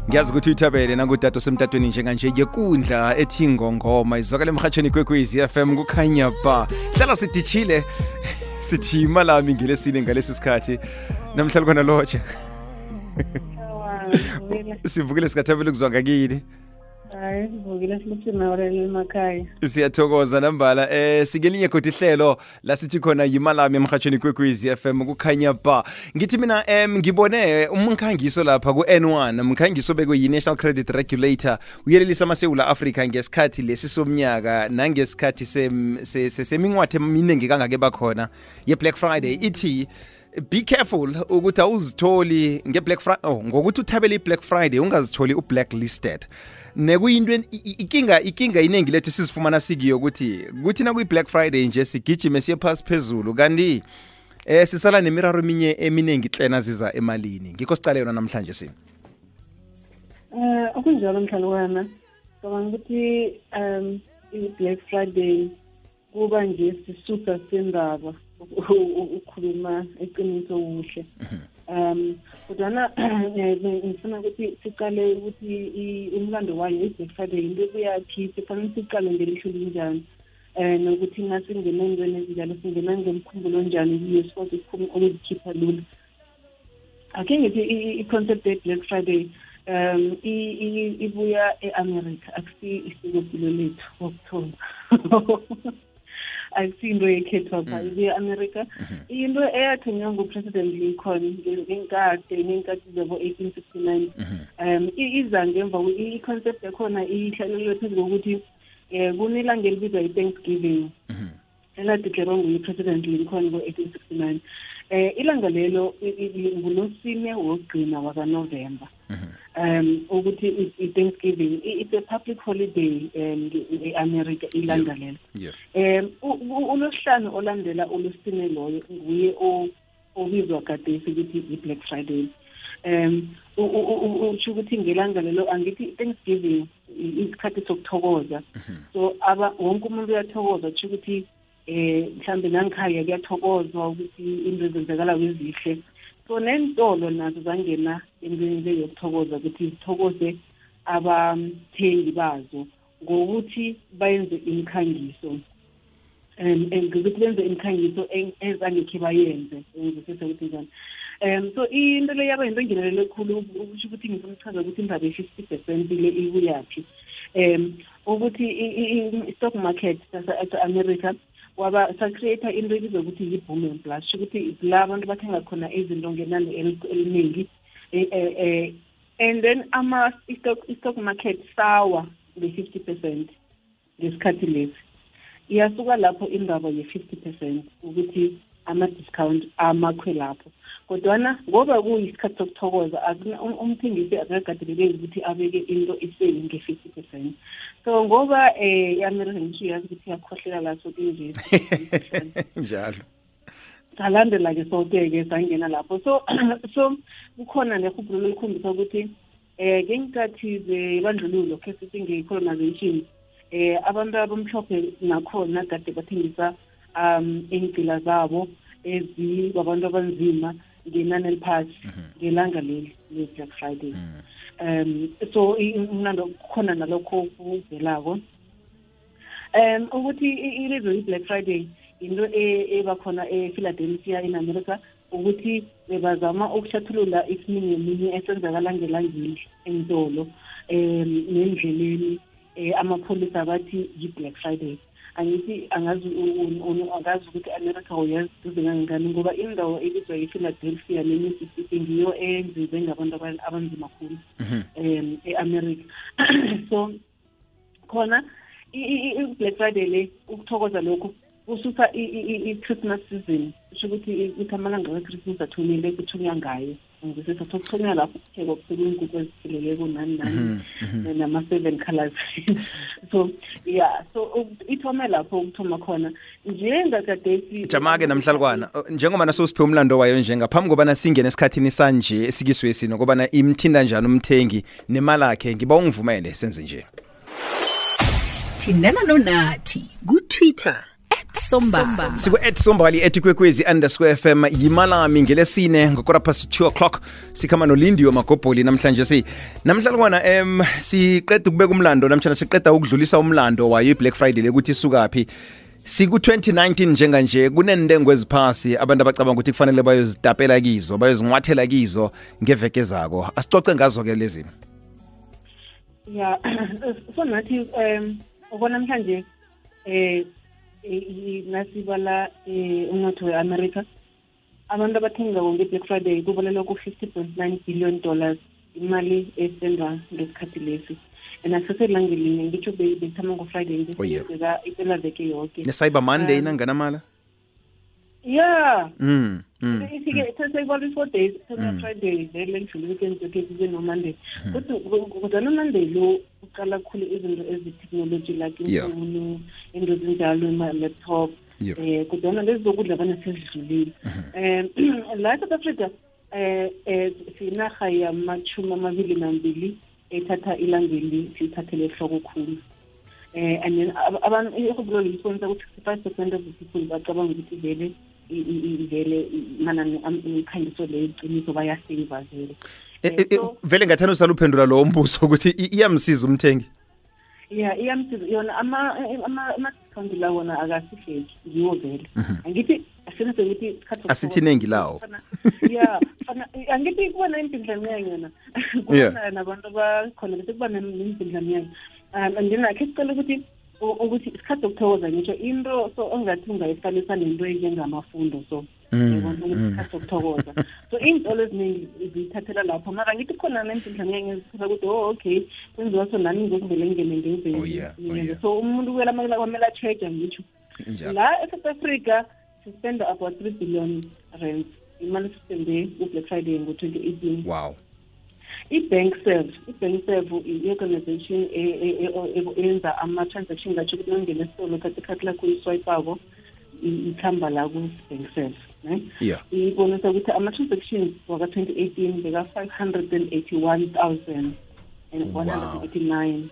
Ngiyazi ukuthi uyithabele nangudade osemtatweni njenganje yekundla ethi ngongoma izwakala emhathweni kwekwezi FM kukhanya ba. Hlala sidishile sithi imalami ngelesine ngalesi sikhathi. Namhlanje khona loje. Sivukile sikathabela ukuzwa ngakini. Hayi, sivukile siluthina orele emakhaya. Siyathokoza nambala sikelinye kodwa ihlelo la sithi khona yimalami emhathweni kwekwezi FM kukhanya ba. Ngithi mina ngibone umkhangiso lapha ku N1 umkhangiso bekwe yi National Credit Regulator uyelelisa amaSewula Africa ngesikhathi lesi somnyaka nangesikhathi seminqwathe eminingi kangake bakhona ye Black Friday ithi be careful ukuthi awuzitholi ngeBlack Friday ngokuthi uthabele iBlack Friday ungazitholi ublacklisted. Nekuyinto ikinga inengi lethu sizifumana sikiyo ukuthi na kuyi Black Friday nje sigijime siye phansi phezulu kanti sisala nemiraro eminengi hlena ziza emalini ngikho sicale yona namhlanje sini okunjalo mhlalwana ngicabanga ukuthi i-Black Friday kuba nje sisusa sendaba ukukhuluma eqiniso uhle kodwa ngifuna ukuthi siqale ukuthi umlando wayo i-Black Friday into kuyathi sifanele siqale ngelisho linjani nokuthi ngasingena engweni ezinjalo singena ngemkhumbulo njani kuyo sikwazi ukuzikhipha lula. Ake ngithi i-concept ye-Black Friday ibuya e-America akusi isikopilo lethu wokuthoma akusinto yekhethwa pha ibuya e-America into eyathonywa nguPresident Lincoln ngenkathi zabo 1869 iza ngemva i-concept yakhona ihlalelwe phezu kokuthi kunelanga elibizwa i-Thanksgiving eladeklarwa nguPresident Lincoln ngo-1869 ilanga lelo ngolosine wokugcina wakaNovember ukuthi i-Thanksgiving it's a public holiday e-America ilanga lelo uLosihlanu olandela uLosine loyo nguye obizwa kade ukuthi i-Black Friday usho ukuthi ngelanga lelo angithi Thanksgiving isikhathi sokuthokoza so wonke umuntu uyathokoza usho ukuthi mhlambe nangikhaya kuyathokozwa ukuthi into zenzakala kwezihle so nentolo nazo zangena endlini yokuthokoza ukuthi sithokoze abathengi bazo ngokuthi bayenze imikhangiso ngokuthi benze imikhangiso ezangekhe bayenze ngizothetha ukuthi njani so into le yaba into engenelele ekhulu ukuthi ngifuna ukuchaza ukuthi indaba ye-50% le ikuyaphi ukuthi i-stock market sase-America waba sa-create into ebizwa ukuthi yi-boom and bust ukuthi la abantu bathenga khona izinto ngenani eliningi and then i-stock market sawa nge-50% ngesikhathi lesi iyasuka lapho indaba ye-50% ukuthi ama-discount amakhwe lapho kodwana ngoba kuyisikhathi sokuthokoza umthengisi akakateleleki ukuthi abeke into iseli nge-50% so ngoba i-America ngisho yazi ukuthi iyakhohlela la so kunje njalo salandela-ke soke-ke sangena lapho so kukhona nehubhulo elikhombisa ukuthi ngenkathi zebandlululo khe sithi nge-colonization abantu abamhlophe nakhona kade bathengisa iy'ngcila zabo ezibabantu abanzima ngenani eliphasi ngelanga leli le-Black Friday so umlando khona nalokho kuvelako ukuthi ilizwe i-Black Friday into ebakhona ePhiladelphia in America ukuthi bebazama ukuhlathulula isiningi esenzakala ngelangeli entolo nendleleni amapholisa abathi yi-Black Friday angithi angazi ukuthi America uyaziduze kangangani ngoba indawo ebizwa yi-Philadelphia ne-Mississippi ngiyo enziwe ngabantu abanzima kakhulu e-America so khona i-Black Friday le ukuthokoza lokho kususa i-Christmas season usho ukuthi amalanga we-Christmas athumile kuthunywa ngayo ngizisa sokuthunywa lapho kuphekwa kuphekwa inkukhu ezipheleleko nani nama-7 colors so yeah so ithome lapho ukuthoma khona njengakadesi jama-ke namhlalukwana njengoba nasosiphe umlando wayo nje ngaphambi kobana singene esikhathini sanje esikiswesi nokobana imthinda njani umthengi nemali yakhe ngiba ungivumele senze nje thindana nonathi ku-Twitter @sombali. siku-@sombali @kwekwezi_FM yimalami ngelesine ngokora past 2 o'clock sikhama nolindiwe magobholi namhlanje namhlalukwana siqeda ukubeka umlando namtshana siqeda ukudlulisa umlando wayo i-Black Friday lekuthi isukaphi siku-2019 njenganje kunentengo eziphasi abantu abacabanga ukuthi kufanele bayozitapela kizo bayozinqwathela kizo ngeveke zako asicoce ngazo-ke lezi ya so nathi ubona namhlanje nasibala umnotho we-America abantu abathengako nge-Black Friday kubalelwa ku-$50.9 billion imali esenzwa ngesikhathi lesi and aseselangelinye ngitsho bethama ngo-Friday ngisebeka ipela veke yonke ne-Cyber Monday nanganamala yeah ifike sesayibala 4 days Friday vele ngidlula weekend yonke kube no Monday kodwa no Monday lo uqala khulu izinto ezi-technology like imfuno into ezinjalo ama-laptop kodwa lezi zokudla bana sezidlulile la South Africa sinarha yama-22 ethatha ilangeli sithathele ehloko khulu and then abantu ihublo lisibonisa ukuthi 65% of the people bacabanga ukuthi vele manani imikhangiso le iqiniso bayaseva vele vele ngathanda usala uphendula lo mbuso ukuthi iyamsiza umthengi iyamsiza yona ama-discount la wona akasifeki ngiwo vele angithi asithi asithi nengi lawo angithi kubona impindlamnyanya yona kubona nabantu abakhona bese kuba nempindlamnyanya andinakhe sicela ukuthi isikhathi sokuthokoza ngitsho into so ongathi ungayifanisa nento enjengamafundo so isikhathi sokuthokoza so iy'ntolo eziningi ziyithathela lapho mara ngithi khona nempindlamnyanya ezithatha ukuthi okay kwenziwa so nami ngokuvele ngene ngenze so umuntu kwamele a-check-a ngitsho la eSouth Africa sispenda about 3 billion rand imali sispende ku-Black Friday ngo-2018 wow i-bank serve i-organization eyenza ama-transaction ngatsho ukuthi nangena esitolo khathi lakho uyiswayipako ithamba la ku-bank serve ibonisa ukuthi ama-transactions waka-2018 beka-581,189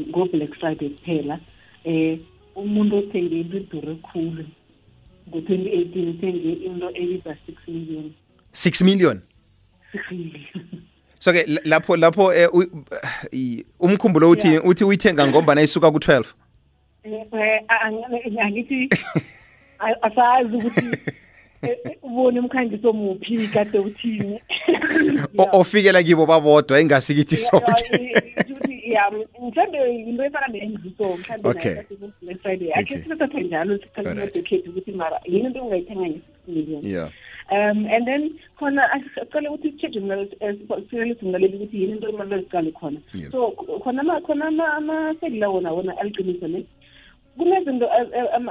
ngo-Black Friday kuphela umuntu othenge into idure khulu ngo-2018 uthenge into ebiza 6 million 6 million so-ke lapho umkhumbulo uthi uyithenga ngombana isuka ku-12 angithi asazi ukuthi ubone umkhangiso muphi kade uthini ofikela kibo babodwa ingasikithi sonke mhlawumbe into efana ne-engiso mhlawumbe Black Friday akhe sithatha njalo sikhathi ukuthi mara yini into ungayithenga nge-6 million and then khona asicale ukuthi i-charge singaleli ukuthi yini into imali eziqale khona so khona ama-sale wona aliqiniso ne kunezinto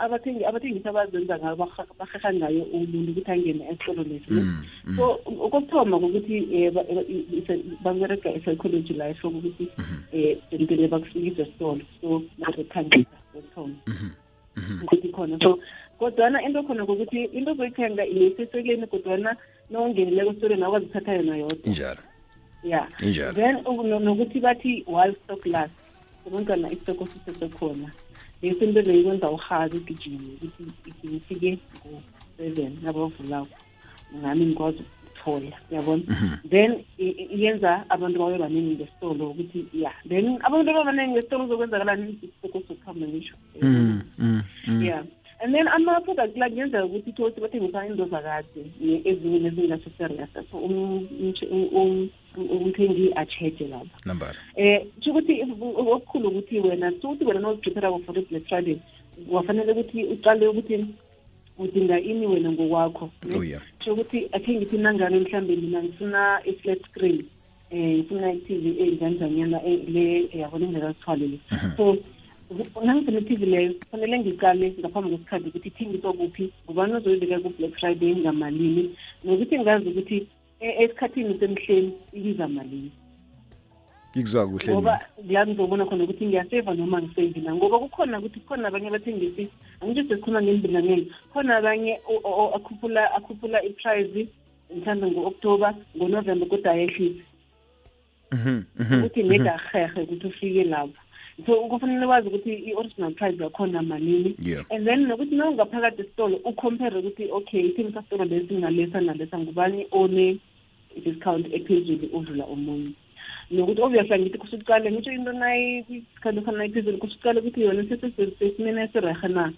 abathengisi abazenza ngayo baheha ngayo umuntu ukuthi angene esitolo lesi so ukuthoma ukuthi babereka i-psychology la esho ukuthi impilo bakufikisa esitolo so bazokhangisa ukuthoma ukuthi khona so kodwana into khona ukuthi into ozoyithenga iseseleni kodwana nongenileko esitoleni awazithatha yona yodwa injalo then nokuthi bathi while stock last sebantwana isitoko sisesekhona into leyo ikwenza uhazi ugijime ukuthi ngifike ngo-7 nabavulako ngami ngikwazi ukuthola yabona then iyenza abantu babe baningi ngesitolo ukuthi then abantu abaningi ngesitolo uzokwenzakalani isitoko sokuhamba ngisho and then ama-product la kuyenzeka ukuthi thothi bathengisa into zakade ezinye nezingaseserious so umthengi a-check-e lapha ukuthi okukhulu ukuthi wena sokuthi wena noziprepare for i-Black Friday wafanele ukuthi uqale ukuthi udinga ini wena ngokwakho so ukuthi akhe ngithi nangane mhlawumbe mina ngifuna i-flat screen ngifuna i-TV enjanjanyana le yabona ingakazithwalele so nangifuna i-TV leyo kufanele ngiqale ngaphambi kwesikhathi ukuthi ithengiswa kuphi ngubani ozoyibeka ku-Black Friday ngamalini nokuthi ngazi ukuthi esikhathini semhleni ibiza malini ngikuzwa kuhle ngoba la ngizobona khona ukuthi ngiyaseva noma ngisevi na ngoba kukhona ukuthi kukhona abanye abathengisi angithi sesikhuluma ngembindangeni khona abanye akhuphula i-price mhlawumbe ngo-October ngo-November kodwa ayehlise ukuthi neda hehe ukuthi ufike lapho so kufanele wazi ukuthi i-original price yakhona malini Yeah. and then nokuthi nawungaphakathi esitolo ucompare ukuthi okay ithengisa sitolo lesi ngalesa nalesa ngubani one discount ephezulu udlula omunye nokuthi obviously ngithi kusuqale ngitsho into nayi isikhathi khona iphezulu kusuqale ukuthi yona sesimene esirehe na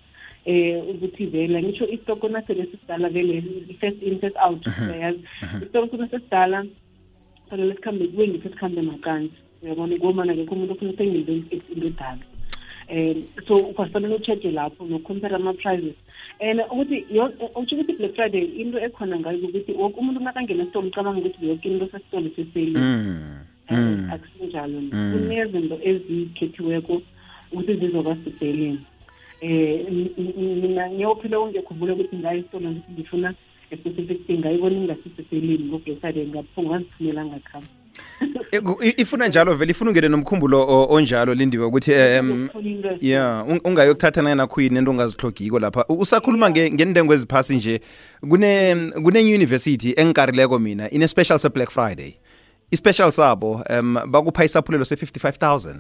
ukuthi vele ngitsho istoko nasele sidala vele first in first out yazi istoko kuna sesidala fanele sikhambe kuwengi sesikhambe makanzi uyabona ngomana ke umuntu ufuna uthengile into edala so ufanele ucheck lapho nocompare ama prices and ukuthi uthi ukuthi Black Friday into ekhona ngayo ukuthi wonke umuntu nakangena esitolo ucabanga ukuthi yonke into sesitolo seseli akusinjalo kunezinto ezikhethiweko ukuthi zizoba siseleni mina ngiyophila ungekhumbule ukuthi ngayo esitolo ukuthi ngifuna specific thing ngayibona ingasiseleni ngo-Black Friday ngaphunga ngazithumela ngakhamba ifuna njalo vele ifuna ungene nomkhumbulo onjalo Lindiwe ukuthi yeah ungayokuthatha nana khuyini into ongazihlogiko lapha usakhuluma ngendengo eziphasi nje kune university engikarileko mina ine special se Black Friday i-special sabo bakupha isaphulelo se-55,000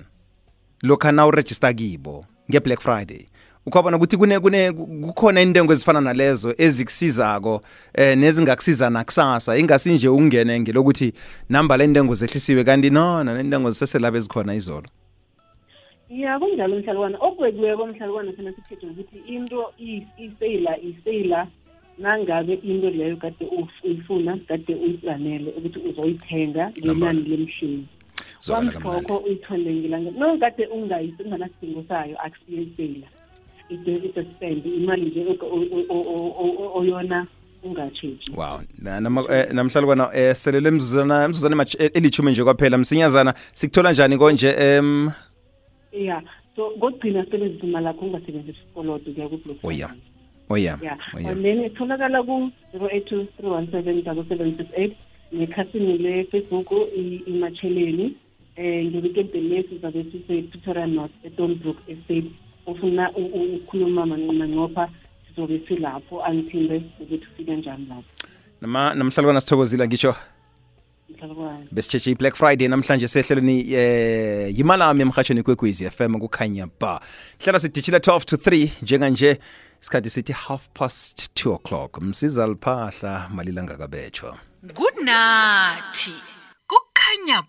lokha na uregister kibo nge-Black Friday ukhona ukuthi kukhona intengo ezifana nalezo ezikusizako nezingakusiza nakusasa ingasinje ungene ngelokuthi namba le intengo zehlisiwe kanti no nentengo ziseselabo ezikhona izolo ya kunjalo mhlalukwana okwekiweko mhlalukwana sena sithethe ukuthi into iseyila nangabe into leyo kade uyifuna kade uyiplanele ukuthi uzoyithenga ngenani lemshini wamhlokho uyithole ngilanga no kade unganasidingo sayo akusiyeseyila it's a spend imali nje oyona ungatsheji wow namhlalukwana selele emzuzana elithumi nje kwaphela msinyazana sikuthola njani konje yeah so ngogcina sebenzisa imali yakho ungasebenzisa isikoloto kuya ku-Black yeah and then itholakala ku-0823177768 nekhasini le-Facebook imatsheleni nge-weekend lesi zabe sise-Pretoria North eDonbrook Estate ufuna ukukhuluma manqopha sizobe silapho angithinde ukuthi ufike njani lapho namhlalukwana sithokozile ngisho besitsheje i-Black Friday namhlanje sehlelweni yimalami emhatshweni kwekwezi FM kukhanya ba hlelo sidijila 12 to 3 njenganje isikhathi sithi 2:30 msiza liphahla malilanga kabetshwa good night kukhanya